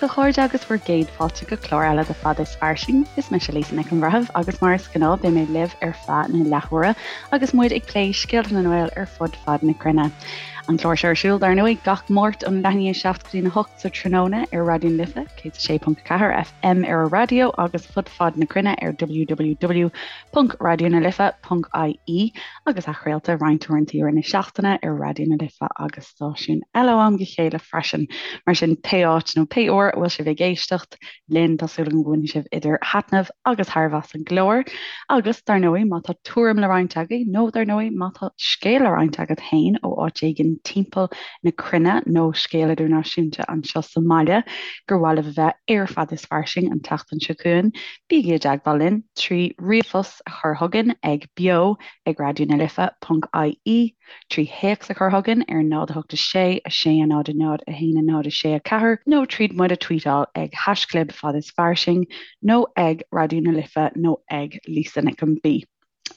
a chairde agus bhur gcéad fáilte go clár eile de Fada is Fairsing. Is mise Lisa Nic an Bhreithimh agus mar is gnáth beidh mé libh ar feadh na leathuaire agus muid ag plé scéalta na nGael ar fud fad na cruinne. An clár seo ar siúl dar ndóigh gach Máirt ón leath i ndiaidh 7 go dtí a 8 sa tráthnóna ar Raidió na Life 106.4 FM ar an raidió agus fud fad na cruinne ar www.raidionalife.ie agus athchraolta roinnt uaireanta i rith na seachtaine ar Raidió na Life agus stáisiúin eile ó am go chéile freisin. Mar sin, pé áit nó pé uair a bhfuil sibh ag éisteacht linn, tá súil agam go mbainfidh sibh idir thaitneamh agus thairbhe as an gclár. Agus, dar ndóigh, má tá tuairim le roinnt agaibh, nó dar ndóigh, má tá scéal le roinnt agat féin ó áit éigin timpeall na cruinne nó scéal idirnáisiúnta anseo sa mbaile gur mhaith libh a bheith ar Fada is Fairsing an tseachtain seo chugainn, bígí i dteagmháil linn trí ríomhphost a chur chugainn ag beo ag raidionalife ponc ie. 3 théacs a chur chugainn ar 0 8 6 6 0 0 1 0 6 4 nó tríd muid a tweetáil ag haischlib fad is fairsing nó ag Raidió na Life nó ag Lisa Nic an B.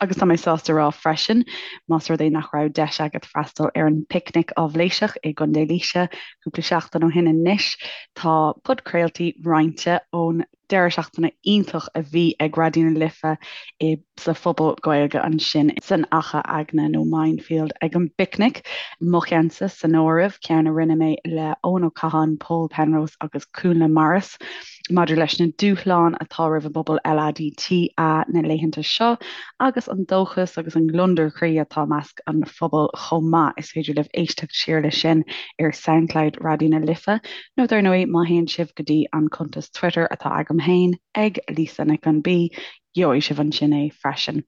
Agus tá mé sásta rá freisin, más rud é nach raibh deis agat freastal ar an bPicnic Áibhléiseach i gContae Laoise cúpla seachtain ó shin anois, tá podchraoltaí roinnte ón deireadh seachtaine iontach a bhí ag Raidió na Life i sa phuball Gaeilge ansin san Achadh Eagna nó Mindfield ag an bPicnic, mo cheannsa san áireamh, ceann a rinne mé le Eoin Ó Catháin, Pól Penrose agus Cúnla Morris maidir leis na dúshláin atá roimh an bpobal LADTA na laethanta seo agus an dóchas agus an gliondar croí atá i measc an phobail chomh maith. Is féidir libh éisteacht siar leis sin ar Soundcloud Raidió na Life. Nó dar ndóigh, má théann sibh go dtí an cuntas Twitter atá agam féin, ag Lisa Nic an B, gheobhaidh sibh ansin é freisin.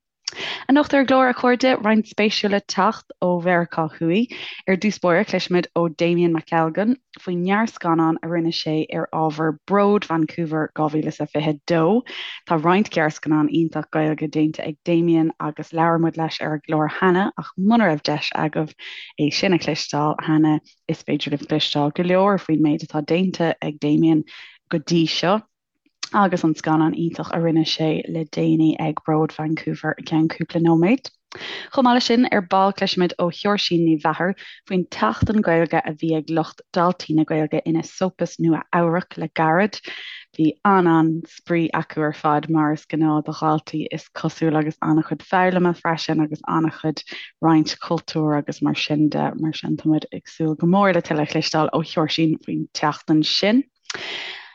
Anocht ar an gclár, a chairde, roinnt spéisiúil le teacht ó Mheiriceá Thuaidh. Ar dtús báire, cloisfimid ó Damien McElgunn faoin ngearrscannán a rinne sé ar ábhar Bród Vancouver 2022. Tá roinnt gearrscannán iontach Gaeilge déanta ag Damien agus labhair muid leis ar an gclár cheana ach muna raibh deis agaibh é sin a chloisteáil cheana, Is féidir libh cloisteáil go leor faoin méid atá déanta ag Damien go dtí seo agus an scannán iontach a rinne sé le déanaí ag Bród Vancouver i gceann cúpla nóiméad. Chomh maith leis sin, ar ball cloisfimid ó Sheoirsín Ní Mheachair faoin tSeachtain Gaeilge a bhí ag lucht Daltaí na Gaeilge in Esopus, Nua Eabhrac le gairid. Bhí an-an-spraoi acu ar fad, mar is gnáth do dhaltaí is cosúil, agus an-chuid foghlama freisin agus an-chuid roinnt cultúir agus mar sin de. Mar sin tá muid ag súil go mór le tuilleadh a chloisteáil ó Sheoirsín faoin tseachtain sin.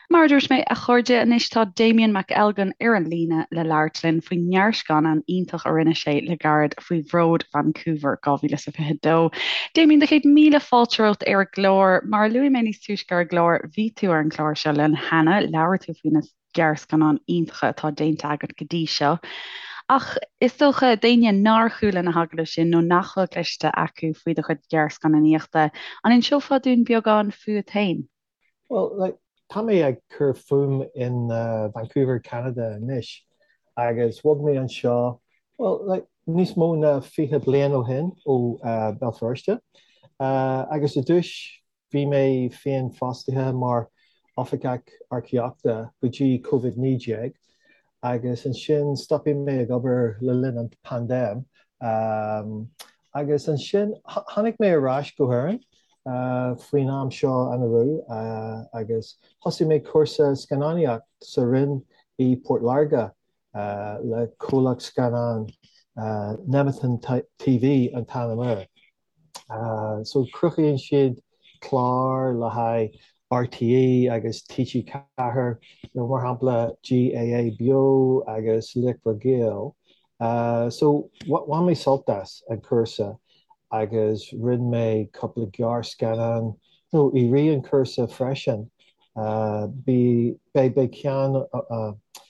Mar a dúirt mé, a chairde, anois tá Damien McElgunn ar an líne le labhairt linn faoin ngearrscannán iontach a rinne sé le gairid faoi Bhród Vancouver 2022. Damien, do chéad míle fáilte romhat ar an gclár. Mar a luaigh mé níos túisce ar an gclár, bhí tú ar an gclár seo linn cheana, labhair tú faoi na gearrscannáin iontacha atá déanta agat go dtí seo. Ach is dócha, d'éinne nár chuala na hagallaimh sin nó nach bhfuil cloiste acu faoi do chuid gearrscannánaíochta, an inseofá dúinn beagán fút féin? Well, like, tá mé ag cur fúm in Vancouver, Ceanada anois agus bhog mé anseo, well, like, níos mó ná 20 bliain ó shin ó Béal Feirste. Agus i dtús bhí mé féin fostaithe mar oifigeach earcaíochta go dtí Covid-19 agus ansin stopfaidh mé ag obair le linn an paindéim. Agus ansin tháinig mé ar ais go hÉirinn faoin am seo anuraidh agus thosaigh mé cúrsa scannánaíocht sa Rinn i Port Láirge le comhlacht scannán Nemeton TV an t-ainm air. So cruthaíonn siad cláir le haghaidh RTÉ agus TG4, mar shampla GAA Beo agus Laochra Gael. So bhain mé sult as an cúrsa agus rinne mé cúpla gearrscannán nó i rith an chúrsa freisin. Beidh ceann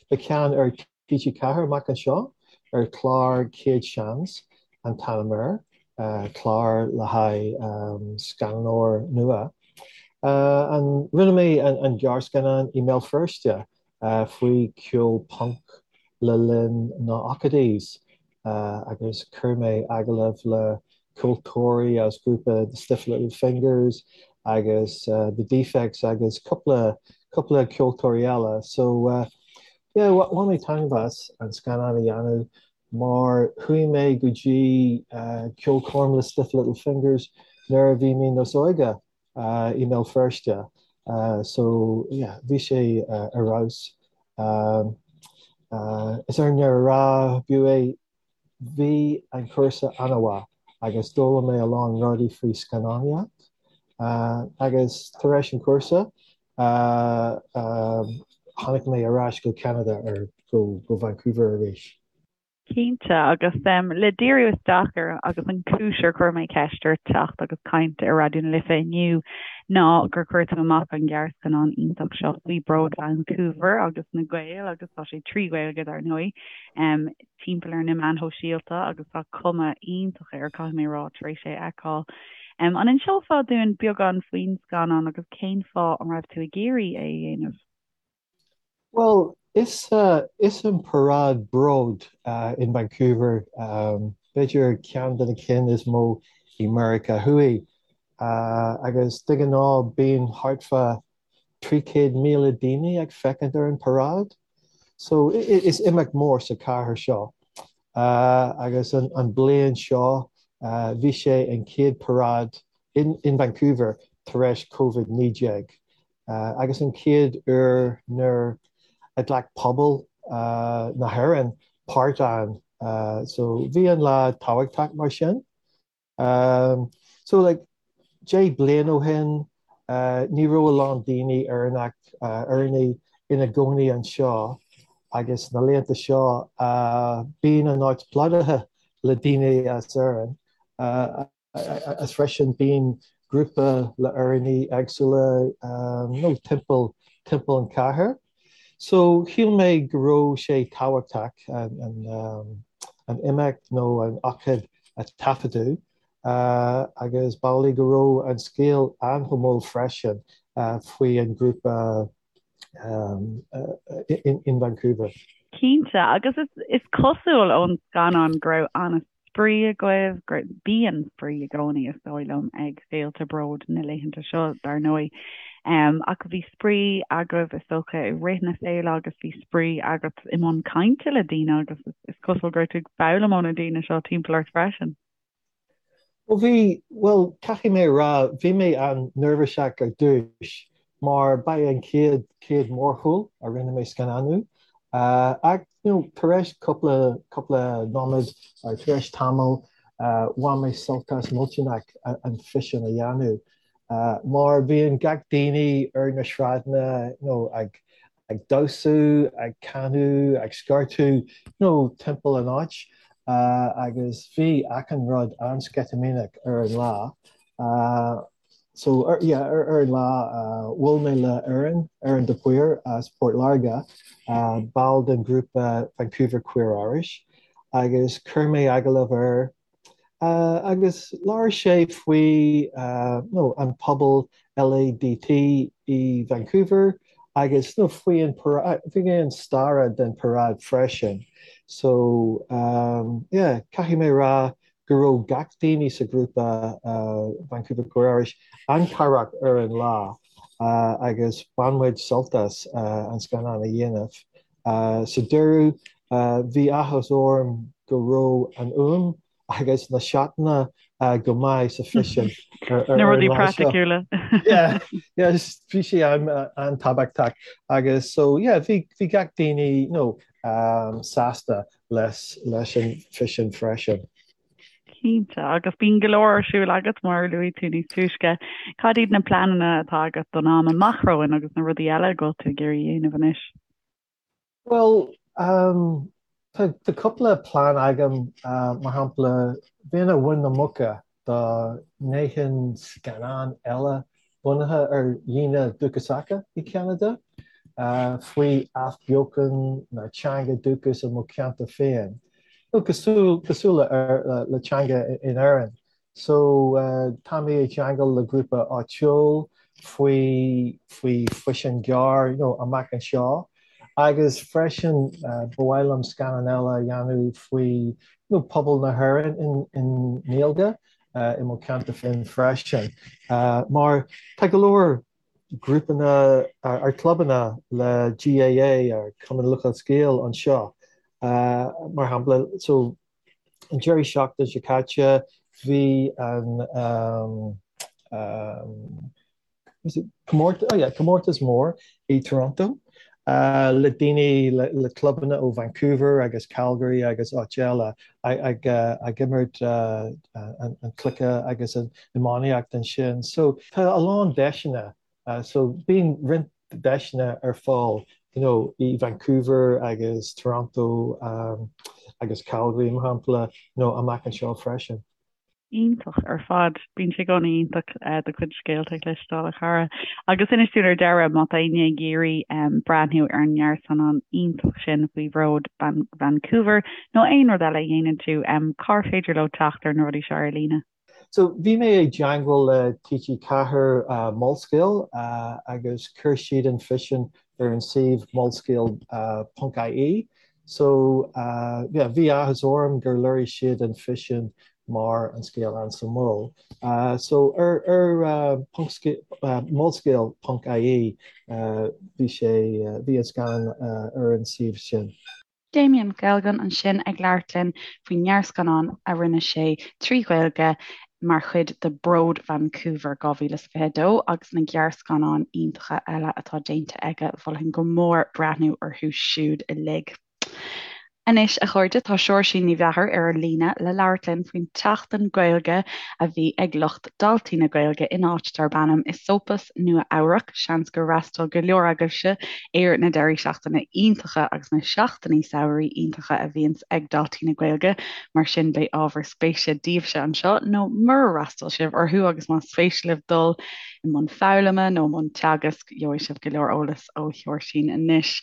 beidh ceann ar TG4 amach anseo ar chlár Céad Seans an t-ainm air, clár le haghaidh scannánóir nua. An rinne mé an gearrscannán i mBéal Feirste faoi ceol punk le linn na ochtóidí agus chuir mé agallamh le ceoltóirí as grúpa The Stiff Little Fingers agus The Defects agus cúpla cúpla ceoltóirí eile. So yeah, bhain mé taitneamh as an scannán a dhéanamh mar chuaigh mé go dtí ceolchoirm le Stiff Little Fingers nuair a bhí mé níos óige i mBéal Feirste. So yeah, bhí sé ar fheabhas. Is ar ndeireadh a rá, b'fhiú é, bhí an cúrsa an-mhaith agus d'fhoghlaim mé a lán rudaí faoi scannánaíocht. Agus tar éis an cúrsa, tháinig mé ar ais go Ceanada ar go Vancouver arís. Cinnte, agus le díriú isteach ar agus an cúis ar chuir mé ceist ort teacht agus caint ar Raidió na Life inniu ná gur chuir tú amach an gearrscannán iontach seo faoi Bród Vancouver agus na Gaeil agus tá sé trí Ghaeilge dar ndóigh timpeall ar na meáin shóisialta agus tá cuma iontach air caithfidh mé a rá tar éis é a fheiceáil. An inseofá dúinn beagán faoin scannán agus cén fáth an raibh tú ag iarraidh é a dhéanamh? Bhuel, is is an paráid bród in Vancouver, b'fhéidir ceann de na cinn is mó i Meiriceá Thuaidh, agus de ghnáth bíonn thart fá 300,000 daoine ag féachaint ar an paráid. So is imeacht mór sa chathair seo. Agus an bliain seo bhí sé an chéad paráid in Vancouver tar éis Covid-19. agus an chéad uair nuair a ghlac pobal na hÉireann páirt ann. So bhí an lá tábhachtach mar sin. So like 10 bliain ó shin ní raibh a lán daoine Éireannach, Éireannaigh ina gcónaí anseo agus na laethanta seo bíonn an áit plódaithe le daoine as Éirinn. Agus freisin bíonn grúpa le Éireannaigh éagsúla nó timpeall timpeall an chathair. So shíl mé go raibh sé tábhachtach an an imeacht nó an ócáid a taifeadadh agus b'amhlaidh go raibh an scéal an-shuimiúil freisin faoi an grúpa in Vancouver. Cinnte, agus is cosúil ón scannán go raibh an-spraoi agaibh, go bíonn spraoi i gcónaí is dóigh liom ag féilte bród na laethanta seo dar ndóigh. Ach bhí spraoi agaibh is dócha i rith na féile agus bhí spraoi agat i mbun cainte le daoine agus is cosúil go raibh tú ag foghlaim ó na daoine seo timpeall ort freisin. Ó bhí, bhuel, caithfidh mé a rá, bhí mé an-neirbhíseach ar dtús mar ba é an chéad, chéad mórshiúl a rinne mé scannánú. Ach, you know, tar éis cúpla, cúpla nóiméad, or tar éis tamall, bhain mé sult as millteanach an físeán a dhéanamh. Mar bhíonn gach daoine ar na sráideanna, you know, ag, ag damhsú, ag canadh, ag scairteadh, you know, timpeall an áit agus bhí achan rud an-sceitimíneach ar an lá. So, ar, yeah, ar, ar an lá bhuail mé le Erin, Erin de Paor as Port Láirge, ball den ghrúpa Vancouver Queer Irish agus chuir mé agallamh air Agus labhair sé faoi nó an pobal LADT i Vancouver agus nó faoi an faoi an stair den paráid freisin. So yeah, caithfidh mé rá go raibh gach daoine sa grúpa Vancouver Queer Irish an-chabhrach ar an lá agus bhain muid sult as an scannán a dhéanamh. Sa deireadh, bhí áthas orm go raibh an fhuaim agus na seatanna go maith sa físeán ar Na rudaí praiticiúla. Yeah, yeah, bhí sé an-tábhachtach agus so yeah, bhí bhí gach daoine you know, sásta leis leis an físeán freisin. Cinnte, agus bíonn go leor ar siúl agat mar a luaigh tú níos túisce. Cad iad na pleananna atá agat don am amach romhainn agus na rudaí eile go bhfuil tú ag iarraidh a dhéanamh anois? Bhuel, tá tá cúpla plean agam, mar shampla, bheinn ar mhuin na muice dá ndéanfainn scannán eile bunaithe ar dhaoine dúchasacha i Ceanada, faoi athbheochan na teanga dúchais i mo cheantar féin, nó cosúil cosúil le le teanga in Éirinn. So tá mé i gceangal le grúpa áitiúil faoi faoi físeán gearr you know, amach anseo agus freisin ba mhaith liom scannán eile a dhéanamh faoi you know, pobal na hÉireann in in nGaeilge. i mo cheantar féin freisin, mar tá go leor grúpanna ar clubanna le GAA ar Cumann Lúthchleas Gael anseo, mar shampla. So an deireadh seachtain seo caite bhí an. Comórtas, oh yeah, comórtas mór i Toronto le daoine, le clubanna ó Vancouver agus Calgary agus áit eile ag imirt an cluiche agus an iománaíocht ansin. So tá a lán deiseanna, so bíonn roinnt deiseanna ar fáil you know i Vancouver agus Toronto agus Calgary mar shampla, you know amach anseo freisin. Iontach ar fad. Bíonn sé i gcónaí iontach do chuid scéalta a chloisteáil, a chara. Agus inis dúinn ar deireadh, má tá éinne ag iarraidh breathnú ar an ngearrscannán iontach sin faoi Bhród Vancouver nó aon rud eile a dhéanann tú, cár féidir leo teacht ar na rudaí seo ar líne? So, bhí mé i dteangmháil le TG4 Molscéal agus chuir siad an físeán ar an suíomh molscéal ponc ie. So, yeah, bhí áthas orm gur léirigh siad an físeán mar an scéal Ansa Mol. So, ar ar ponc molscéal ponc ie bhí sé, bhí an scannán ar an suíomh sin. Damien Mac Ailgin ansin ag labhairt linn faoin ngearrscannán a rinne sé trí Ghaeilge mar chuid de Bród Vancouver 2022 agus na gearrscannáin iontacha eile atá déanta aige, mholfainn go mór breathnú orthu siúd uilig. Anois, a chairde, tá Seoirsín Ní Mheachair ar an líne le labhairt linn faoin tSeachtain Gaeilge a bhí ag lucht Daltaí na Gaeilge in áit darb ainm Esopus, Nua Eabhrac. Seans gur fhreastail go leor agaibhse ar na deirí seachtaine iontacha agus na seachtainí samhraidh iontacha a bhíonns ag Daltaí na Gaeilge, mar sin beidh ábhar spéise daoibhse anseo, nó murar fhreastail sibh orthu agus más spéis libh dul i mbun foghlama nó i mbun teagasc, gheobhaidh sibh go leor eolais ó Sheoirsín anois.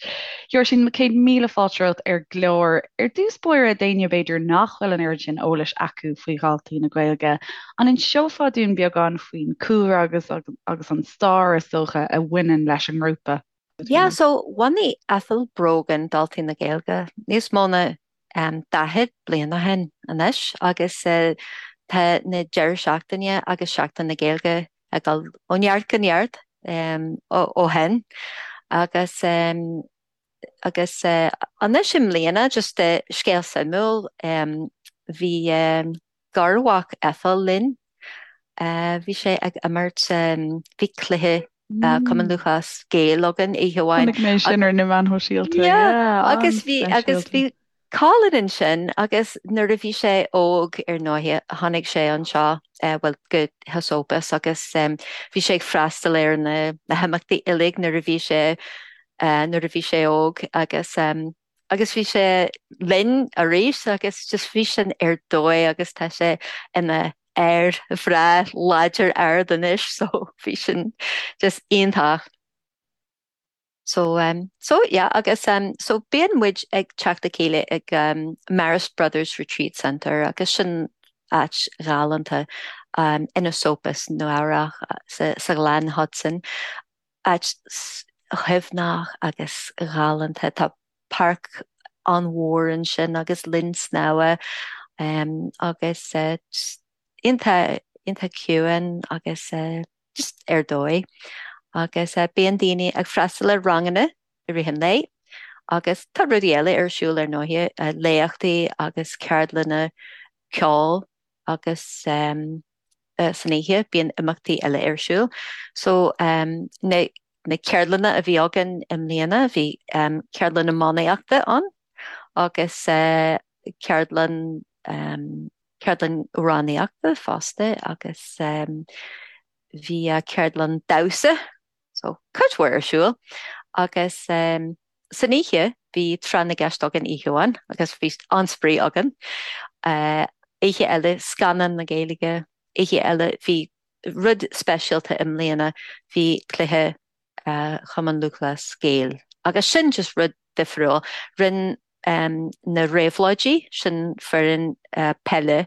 Sheoirsín, 100,000 fáilte romhat ar an gclár. Ar dtús báire, d'éinne b'fhéidir nach bhfuil an oiread sin eolais acu faoi Dhaltaí na Gaeilge, An inseofá dúinn beagán faoin cúlra agus agus an stair, is dócha, a bhaineann leis an ngrúpa? Yeah, so bhunaigh Ethel Brogan Daltaí na Gaeilge níos mó ná 40 bliain ó shin anois agus tá na deireadh seachtaine agus Seachtain na Gaeilge ag dul ó neart go neart ó shin agus Agus anois i mbliana, just scéal suimiúil, bhí garmhac Ethel linn, bhí sé ag imirt, bhí cluiche Cumann Lúthchleas Gael againn oíche amháin. Chonaic mé sin ar na meáin shóisialta, yeah, Agus bhí, agus bhí Colin ansin agus nuair a bhí sé óg ar ndóighe tháinig sé anseo, bhuel go hEsopus agus bhí sé ag freastal ar na himeachtaí uilig nuair a bhí sé nuair a bhí sé óg agus agus bhí sé linn arís agus just bhí sin ar dóigh agus tá sé ina fhear bhreá láidir ard anois so bhí sin just iontach. So um so yeah agus um so bíonn muid ag teacht le chéile ag um Marist Brothers Retreat Centre agus sin áit ghalánta um in Esopus, Nua Eabhrac sa sa Ghleann Hudson. Áit shuaimhneach agus ghalánta. Tá páirc an-mhór ansin agus linn snámha um agus uh just iontach iontach ciúin agus uh just ar dóigh. Agus bíonn daoine ag freastal ar ranganna i rith an lae agus tá rudaí eile ar siúl ar ndóighe, léachtaí agus ceardlanna ceoil agus san oíche bíonn imeachtaí eile ar siúl. So na na ceardlanna a bhí againn i mbliana bhí ceardlann iománaíochta ann agus ceardlann ceardlann amhránaíochta fosta agus bhí ceardlann damhsa, so cuid mhór ar siúl agus san oíche bhí tráth na gceist againn oíche amháin agus bhí an-spraoi againn. Oíche eile scannán na Gaeilge, oíche eile bhí rud speisialta i mbliana, bhí cluiche Chumann Lúthchleas Gael agus sin just rud difriúil. Rinne na Réabhlóidí, sin foireann peile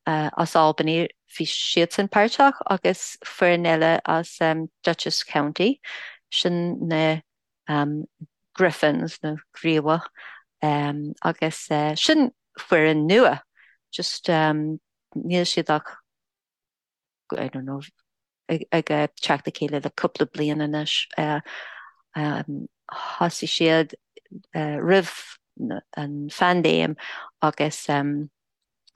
as Albany, bhí siadsan páirteach agus foireann eile as Dutchess County, sin na Griffins nó Griabhach agus sin foireann nua, just níl siad ach I don't know, ag teacht le chéile le cúpla bliain anois. Thosaigh siad roimh an phaindéim agus.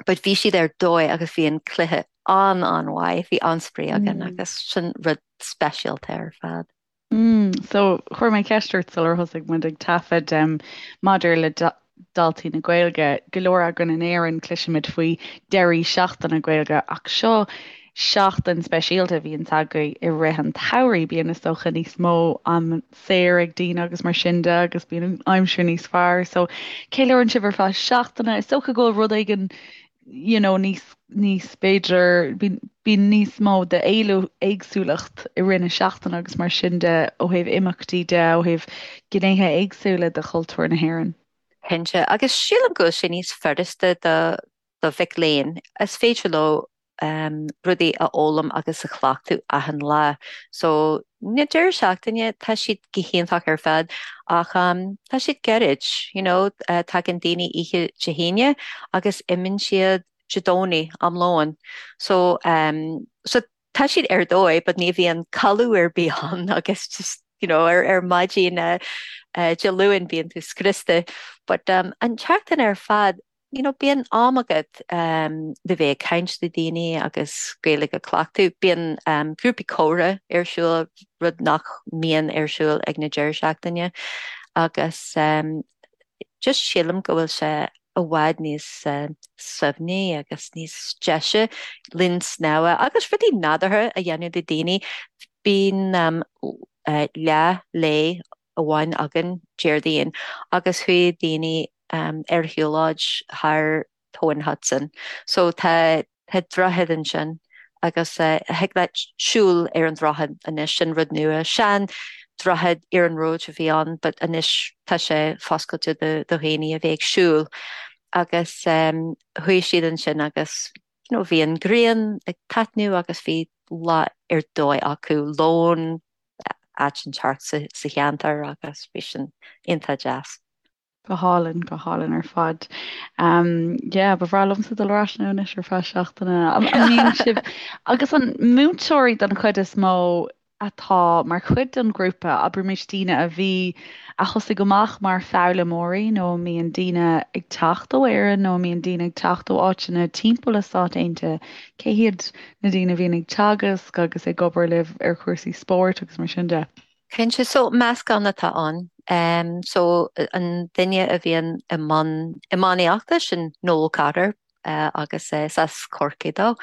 But bhí siad ar dóigh agus bhí an cluiche an-an-mhaith, bhí an-spraoi againn agus sin rud speisialta ar fad. Mm, so chuir mé ceist ort sular thosaigh muid ag taifead um, maidir le daltaí na Gaeilge. Go leor againn in Éirinn cloisimid faoi deirí seachtaine Gaeilge ach seo seachtain speisialta a bhíonns agaibh i rith an tsamhraidh. Bíonn is dócha níos mó am saor ag daoine agus mar sin de agus bíonn an aimsir níos fearr. So ceiliúrann sibh ar feadh seachtaine. Is dócha go bhfuil rud éigin you know, níos, níos b'fhéidir, bíonn, bíonn níos mó de éagsúlacht i rith na seachtaine agus mar sin de ó thaobh imeachtaí de, ó thaobh gnéithe éagsúla de chultúr na hÉireann. Cinnte, agus sílim go bhfuil sé níos furasta do, do mhic léinn. Is féidir leo rudaí a fhoghlaim agus a chleachtadh achan lá. So, na deireadh seachtaine, tá siad go hiontach ar fad ach tá siad gairid, you know, tagann daoine oíche Dé hAoine agus imíonn siad Dé Domhnaigh am lóin. So, so tá siad ar dóigh but ní bhíonn codladh ar bith ann agus just, you know, ar, ar maidin Dé Luain bíonn tú scriosta. But an tseachtain ar fad, you know, bíonn am agat le bheith ag caint le daoine agus Gaeilge a chleachtadh. Bíonn grúpaí comhrá ar siúl, rud nach mbíonn ar siúl ag na deireadh seachtaine agus just sílim go bhfuil sé i bhfad níos suaimhní agus níos deise linn snámha agus rudaí nádúrtha a dhéanamh le daoine. Bíonn leath lae amháin againn Déardaoin agus chuaigh daoine ar shiúlóid thar Tóin Hudson. So tá tá droichead ansin agus thig leat siúl ar an droichead anois, sin rud nua. Sean droichead iarnróid a bhí ann but anois tá sé foscailte do do dhaoine a bheith ag siúl agus chuaigh siad ansin agus you know bhí an ghrian ag taitneamh agus bhí lá ar dóigh acu, lón áit inteacht sa cheantar agus bhí sin iontach deas. Go hálainn, go hálainn ar fad. Um, yeah, ba bhreá liomsa dul ar ais ann anois ar feadh seachtaine. An mbíonn sibh agus an múinteoirí den chuid is mó atá mar chuid den ghrúpa, abraimis daoine a bhí, a thosaigh amach mar foghlaimeoirí nó an mbíonn daoine ag teacht ó Éirinn nó an mbíonn daoine ag teacht ó áiteanna timpeall na Stát Aontaithe, cé hiad na daoine a bhíonn ag teagasc agus ag obair libh ar chúrsaí spóirt agus mar sin de. Cinnte, so meascán atá ann. So an duine a bhíonn i mbun iománaíochta, sin Noel Cotter agus is as Corcaigh dó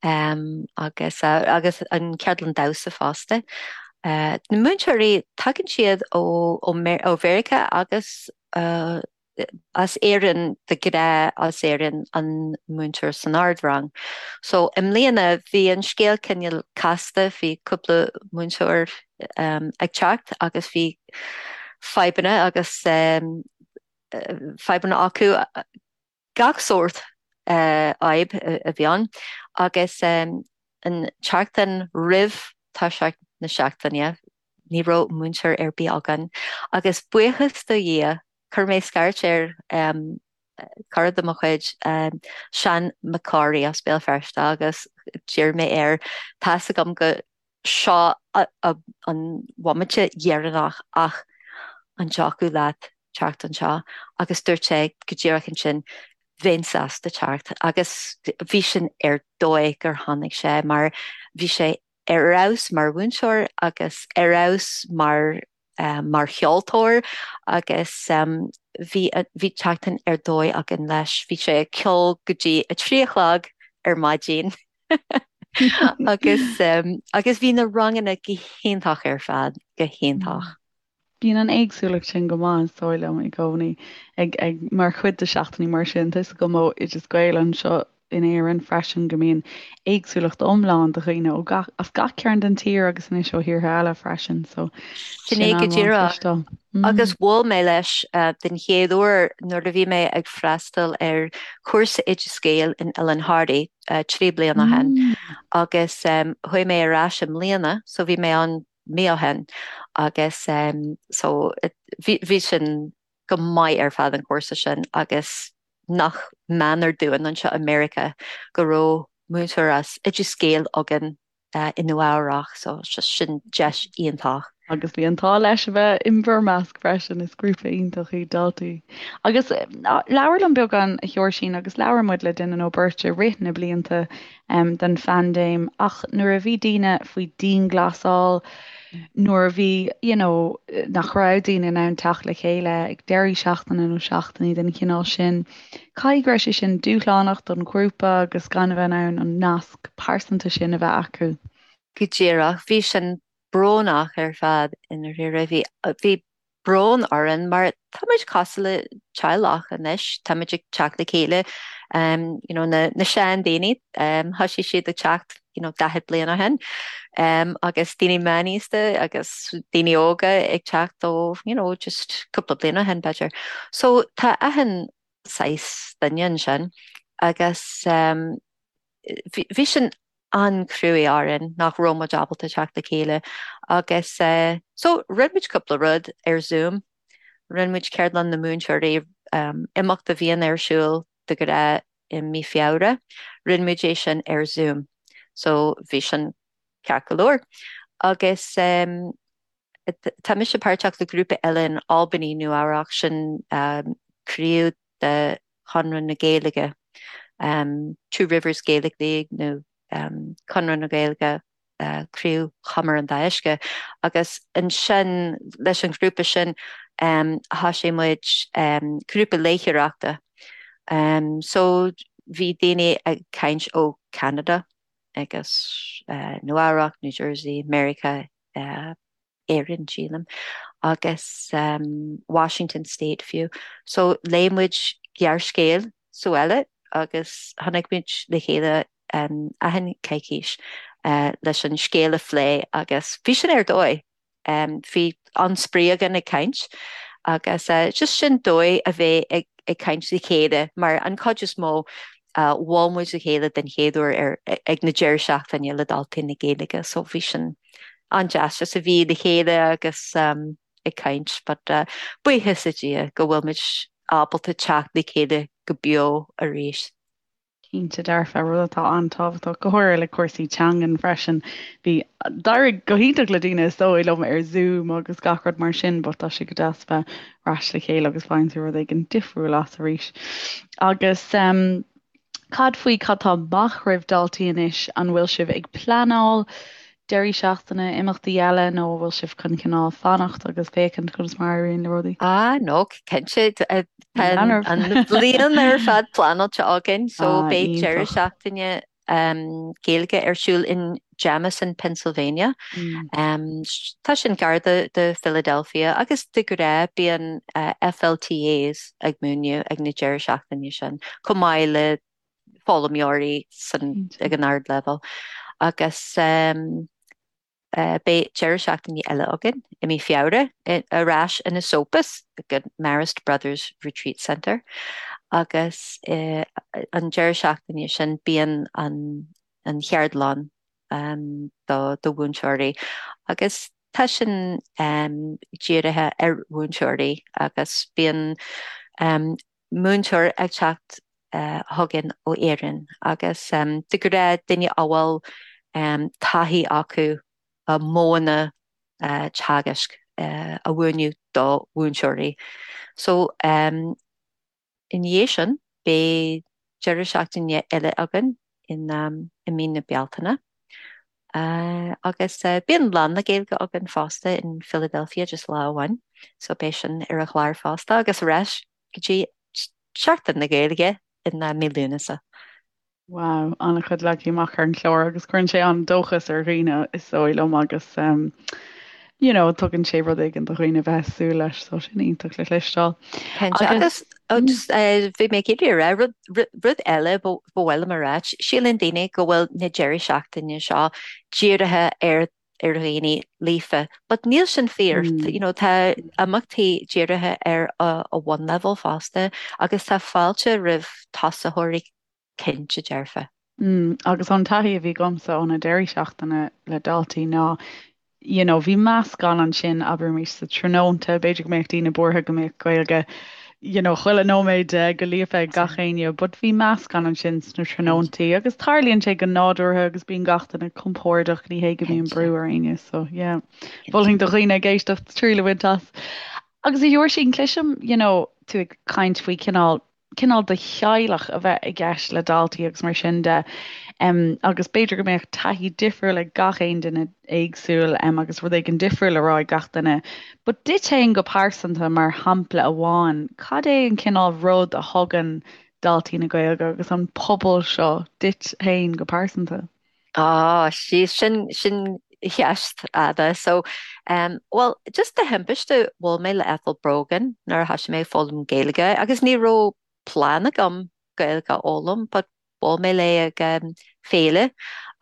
agus agus an ceardlann damhsa fosta. Na múinteoirí, tagann siad ó ó Mheiriceá agus as Éirinn de ghnáth as Éirinn an múinteoir san ardrang. So i mbliana bhí an scéal cineál casta, bhí cúpla múinteoir ag teacht agus bhí fadhbanna agus fadhbanna acu, gach sórt fhadhb a bhí ann agus an tseachtain roimh toiseacht na seachtaine Ní raibh múinteoir ar bith againn agus buíochas do Dhia chuir mé scairt ar cara de mo chuid, Seán Mac Corraidh as Béal Feirste agus d'iarr mé air, tá's agam go seo an bhomaite dheireanach ach an dtiocfadh leat teacht anseo? Agus dúirt sé go díreach ansin, bheinn sásta teacht agus bhí sin ar dóigh gur tháinig sé mar bhí sé ar fheabhas mar mhúinteoir agus ar fheabhas mar mar cheoltóir agus bhí bhí tseachtain ar dóigh againn leis. Bhí sé ag ceol go dtí a 3 a chlog ar maidin agus agus bhí na ranganna go hiontach ar fad, go hiontach. Bíonn an éagsúlacht sin go maith, is dóigh liom, i gcónaí ag, ag, mar chuid de seachtainí mar sin. Tá 'fhios agam ó Oideas Gael anseo in Éirinn freisin go mbíonn éagsúlacht iomlán de dhaoine ó gach, as gach cearn den tír agus anois ó thíortha eile freisin, so Sin é go díreach. Agus bhuail mé leis den chéad uair nuair a bhí mé ag freastal ar chúrsa Oideas Gael in Oileán Thoraí 3 bliana ó shin agus chuaigh mé ar ais i mbliana, so bhí mé ann mí ó shin agus so bhí bhí sin go maith ar fad an cúrsa sin agus nach méanar dúinn anseo i Meiriceá go raibh múinteoir as Oideas Gael againn i Nua Eabhrach so just sin deis iontach. Agus bhí an t-ádh leis a bheith in bhur measc freisin, is grúpa iontach iad Daltaí. Agus labhair liom beagán, a Sheoirsín, agus labhair muid le duine nó beirt i rith na blianta den phaindéim, ach nuair a bhí daoine faoi dianghlasáil, nuair a bhí, you know, nach raibh daoine in ann teacht le chéile ag deirí seachtaine nó seachtainí den chineál sin, caithfidh go raibh sé sin dúshlánach don ghrúpa agus gan a bheith in ann an nasc pearsanta sin a bheith acu. Go díreach, bhí sin brónach ar fad i ndáiríre. Bhí, bhí brón orainn mar tá muid cosúil le teaghlach anois, tá muid ag teacht le chéile, you know, na, na seandaoine, thosaigh siad ag teacht, you know, 40 bliain ó shin, agus daoine meánaosta agus daoine óga ag teacht ó, you know, just cúpla bliain ó shin b'fhéidir. So tá achan saghas duine ansin agus bhí sin an-chruaidh orainn nach raibh muid ábalta teacht le chéile agus so rinne muid cúpla rud ar Zoom, rinne muid ceardlann na múinteoirí, imeacht a bhíonn ar siúl de ghnáth i mí Feabhra, rinne muid é sin ar Zoom so bhí sin ceart go leor agus tá mise páirteach le grúpa eile in Albany, Nua Eabhrac, sin craobh de Chonradh na Gaeilge, Two Rivers Gaelic League nó Conradh na Gaeilge, Craobh Chumar an Dá Uisce, agus ansin leis an ghrúpa sin thosaigh muid grúpa léitheoireachta. So bhí daoine ag caint ó Ceanada agus Nua Eabhrac, New Jersey, Meiriceá, Éirinn, sílim, agus Washington State fiú. So léigh muid gearrscéal sa bhaile agus tháinig muid le chéile achan coicís leis an scéal a phlé agus bhí sin ar dóigh. Bhí an-spraoi againn ag caint agus just sin dóigh a bheith ag ag caint le chéile mar an chuid is mó bhuail muid le chéile den chéad uair ar ag na deireadh seachtaine le Daltaí na Gaeilge so bhí sin an-deas just a bheith le chéile agus ag caint but buíochas le Dia go bhfuil muid ábalta teacht le chéile go beo arís. Cinnte dearfa, rud atá an-tábhachtach, go háirithe le cúrsaí teangan freisin. Bhí, d'éirigh go hiontach le daoine is dóigh liom ar Zoom agus gach rud mar sin but tá sé go deas bheith ar ais le chéile agus faigheann tú rud éigin difriúil as arís. Agus cad faoi cad tá amach roimh Daltaí anois? An bhfuil sibh ag pleanáil deirí seachtaine, imeachtaí eile nó an bhfuil sibh chun cineál fanacht agus féachaint conas mar a éiríonn le rudaí? Ah no, cinnte, tá an bhliain ar fad pleanáilte againn so ah, beidh deireadh seachtaine um, Gaeilge ar siúl in Jamison, Pennsylvania. Mm. Um, tá sin gar do, do Philadelphia agus de ghnáth bíonn uh, FLTAs ag múineadh ag na deireadh seachtaine sin, chomh maith le foghlaimeoirí san ag an ardleibhéal agus beidh deireadh seachtaine eile againn i mí Feabhra ar ais in Esopus ag an Marist Brothers Retreat Centre agus an deireadh seachtaine sin bíonn an an cheardlann do do mhúinteoirí agus tá sin dírithe ar mhúinteoirí agus bíonn múinteoir ag teacht chugainn ó Éirinn agus de ghnáth duine a bhfuil taithí acu modhanna teagaisc a mhúineadh do mhúinteoirí. So ina dhiaidh sin beidh deireadh seachtaine eile againn i mí na Bealtaine agus bíonn Lá na Gaeilge againn fosta in Philadelphia just lá amháin so beidh sin ar an chlár fosta agus ar ais go dtí Seachtain na Gaeilge i mí Lúnasa. Wow, an-chuid leagtha amach ar an chlár agus cuireann sé an-dóchas ar dhaoine is dóigh liom agus you know, tugann sé rud éigin do dhaoine bheith ag súil leis, so sin iontach le cloisteáil. Cinnte, agus just bhí mé ag iarraidh a rá, rud, rud eile ba mhaith liom a rá, síleann daoine go bhfuil na deirí seachtaine seo dírithe ar ar dhaoine líofa, but níl sin fíor, you know, tá imeachtaí dírithe ar a bhunleibhéal fosta agus tá fáilte roimh tosaitheoirí cinnte dearfa. Agus an taithí a bhí agamsa ó na deirí seachtaine le daltaí ná, you know, bhí meascán ansin, abraimis sa tráthnónta, b'fhéidir go mbeadh daoine buartha go mbeadh Gaeilge, you know, chuile nóiméad de go líofa ag gach éinne, but bhí meascán ansin sna tráthnóntaí agus tarlaíonn sé go nádúrtha agus bíonn gach duine compordach, ní hé go mbíonn brú ar éinne, so yeah. Mholfainn do dhaoine ag éisteacht triail a bhaint as. Agus a Sheoirsín, cloisim, you know, tú ag caint faoi cineál cineál de theaghlach a bheith i gceist le daltaí agus mar sin de. Agus b'fhéidir go mbeadh taithí difriúil ag gach aon duine éagsúil agus rud éigin difriúil le rá ag gach duine. But duit féin go pearsanta, mar shampla amháin, cad é an cineál rud a thugann Daltaí na Gaeilge agus an pobal seo duit féin go pearsanta? Á, sí, sin, sin ceist fhada. So, um, bhuel, just de thimpiste bhuail mé le Ethel Brogan nuair a thosaigh mé ag foghlaim Gaeilge agus ní raibh plean agam Gaeilge a fhoghlaim, but bhuail mé léi ag um, féile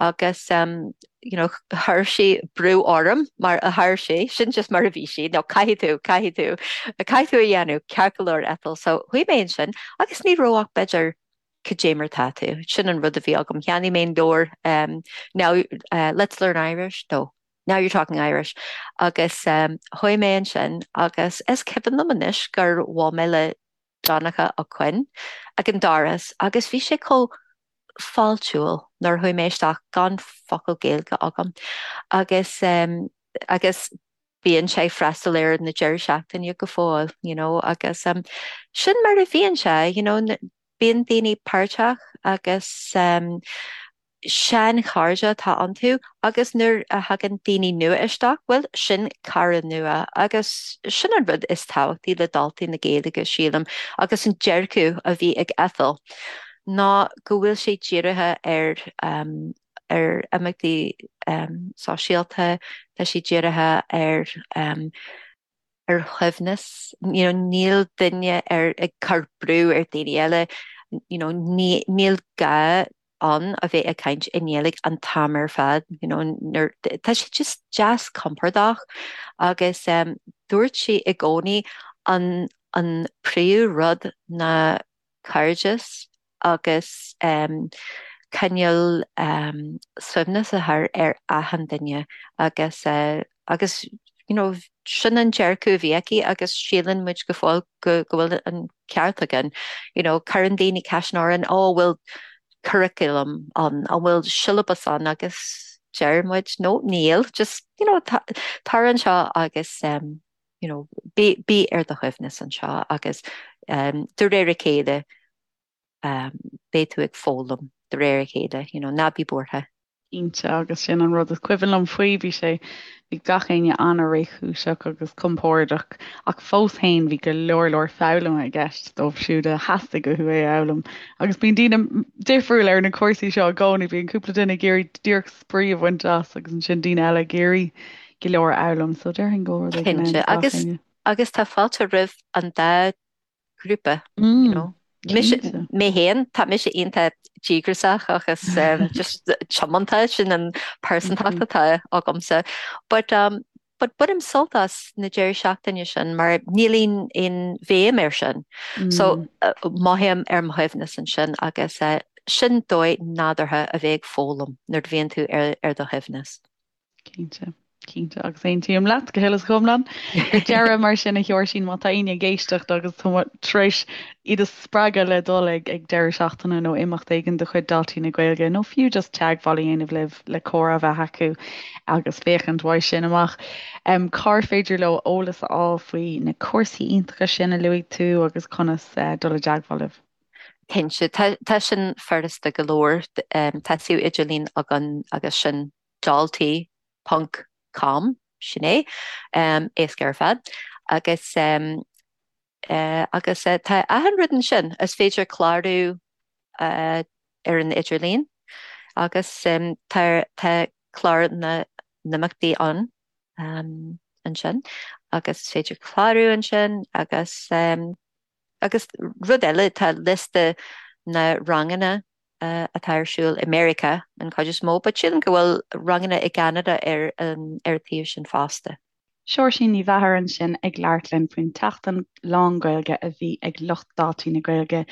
agus um, you know, chuir sí brú orm mar a chuir sí, sin just mar a bhí sí, no, caithfidh tú, caithfidh tú, caithfidh tú a dhéanamh, ceart go leor Ethel. So, chuaigh mé ansin agus ní raibh ach b'fhéidir Cad é mar tá tú? Sin an rud a bhí agam. Cheannaigh mé an leabhar um, Now uh, Let's Learn Irish, no, Now You're Talking Irish. Agus um, chuaigh mé ansin agus is cuimhin liom anois gur bhuail mé le Donncha Ó Coinn ag an doras agus bhí sé chomh fáiltiúil nuair a chuaigh mé isteach gan focal Gaeilge agam. Agus um, agus bíonn sé ag freastal ar na deireadh seachtaine go fóill, you know, agus um, sin mar a bhíonn sé, you know, bíonn daoine páirteach agus um, seanchairde atá iontu agus nuair a thagann daoine nua isteach, bhuel, sin cara nua agus sin an rud is tábhachtaí le Daltaí na Gaeilge, sílim, agus an dearcadh a bhí ag Ethel ná go bhfuil sé dírithe ar um, ar imeachtaí sóisialta, tá sé dírithe ar ar shuaimhneas, you know, níl duine ar ag cur brú ar daoine eile, you know, ní, níl gá ann a bheith ag caint i nGaeilge an t-am ar fad, you know, nuair, tá sé just deas compordach agus um, dúirt sí i gcónaí an, an príomh rud ná cairdeas agus cineál suaimhneas a chur ar achan duine agus agus you know sin an dearcadh a bhí aici agus síleann muid go fóill go go bhfuil an ceart againn. You know cuireann daoine ceisteanna orainn oh an bhfuil curriculum ann, an bhfuil siollabas ann agus deir muid no níl just you know tar anseo agus um, you know bí bí ar do shuaimhneas anseo agus um, de réir a chéile beidh tú ag foghlaim de réir a chéile, you know, ná bí buartha. Cinnte, agus sin an rud is cuimhin liom faoi, bhí sé, bhí gach éinne an-réchúiseach agus compordach ach fós féin bhí go leor leor foghlama i gceist dóibh siúd a theastaigh uathu é a fhoghlaim. Agus bíonn daoine difriúil ar na cúrsaí seo i gcónaí, bíonn cúpla duine ag iarraidh díreach spraoi a bhaint as agus ansin daoine eile ag iarraidh go leor a fhoghlaim, so déarfainn go bhfuil rud éigin ann do gach Agus éinne. agus tá fáilte roimh an dá ghrúpa, you know. Mise, mé féin, tá mise iontach díograiseach agus um, just tiomanta sin an pearsantacht atá agamsa. But, um, but bainim sult as na deireadh seachtaine sin mar níl aon aon bhéim air sin. So uh, mothaím ar mo shuaimhneas ansin agus uh, sin dóigh nádúrtha a bheith ag foghlaim nuair a bhíonn tú ar, ar do shuaimhneas. Cinnte, cinnte, agus aontaím leat go huile is go hiomlán. Ar deireadh, mar sin, a Sheoirsín, má tá éinne ag éisteacht agus tá tar éis iad a spreagadh le dul ag ag deireadh seachtaine nó imeacht éigin de chuid Daltaí na Gaeilge nó fiú just teagmháil a dhéanamh libh le comhrá a bheith acu agus féachaint uaidh sin amach, cár féidir leo eolas a fháil faoi na cúrsaí iontacha sin a luaigh tú agus conas dul i dteagmháil libh? Cinnte, tá sin furasta go leor. Tá suíomh idirlín againn agus sin daltaí ponc com, sin é, éasca ar fad. Agus agus tá achan rud ansin, is féidir clárú ar an idirlíon agus tá tá clár na n-imeachtaí ann ansin agus is féidir clárú ansin agus Agus rud eile, tá liosta na ranganna atá ar siúl i Meiriceá an chuid is mó, but sílim go bhfuil ranganna i gCeanada ar an ar an tsuíomh sin fosta. Seoirsín Ní Mheachair ansin ag labhairt linn faoin tseachtain lán-Ghaeilge a bhí ag lucht Daltaí na Gaeilge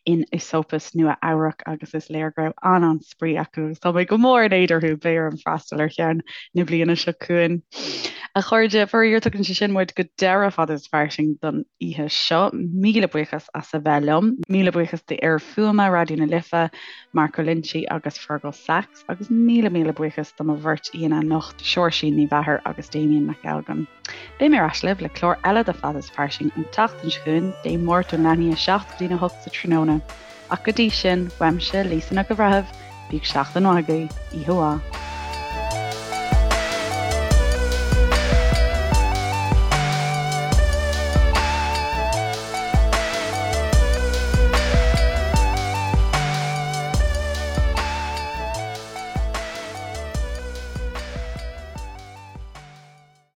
in Esopus, Nua Eabhrac agus is léir go raibh an-an-spraoi acu agus tá mé go mór in éad orthu, beidh orm freastal ar cheann na bliana seo chugainn. A chairde, faraor tugann sé sin muid go deireadh Fada is Fairsing don oíche seo. Míle buíochas as a bheith liom. Míle buíochas d'fhir fuaime Raidió na Life, Marco Loinsigh agus Fergal Sachs. Agus míle míle buíochas do mo bheirt aíonna anocht, Seoirsín Ní Mheachair agus Damien Mac Ailgin. Beidh mé ar ais libh le clár eile de Fada is Fairsing an tseachtain seo chugainn, Dé Máirt ón leath i ndiaidh a 7 go dtí'n 8 sa tráthnóna. Ach go dtí sin, uaimse, Lisa Nic an Bhreithimh, bíodh seachtain mhaith agaibh, oíche mhaith.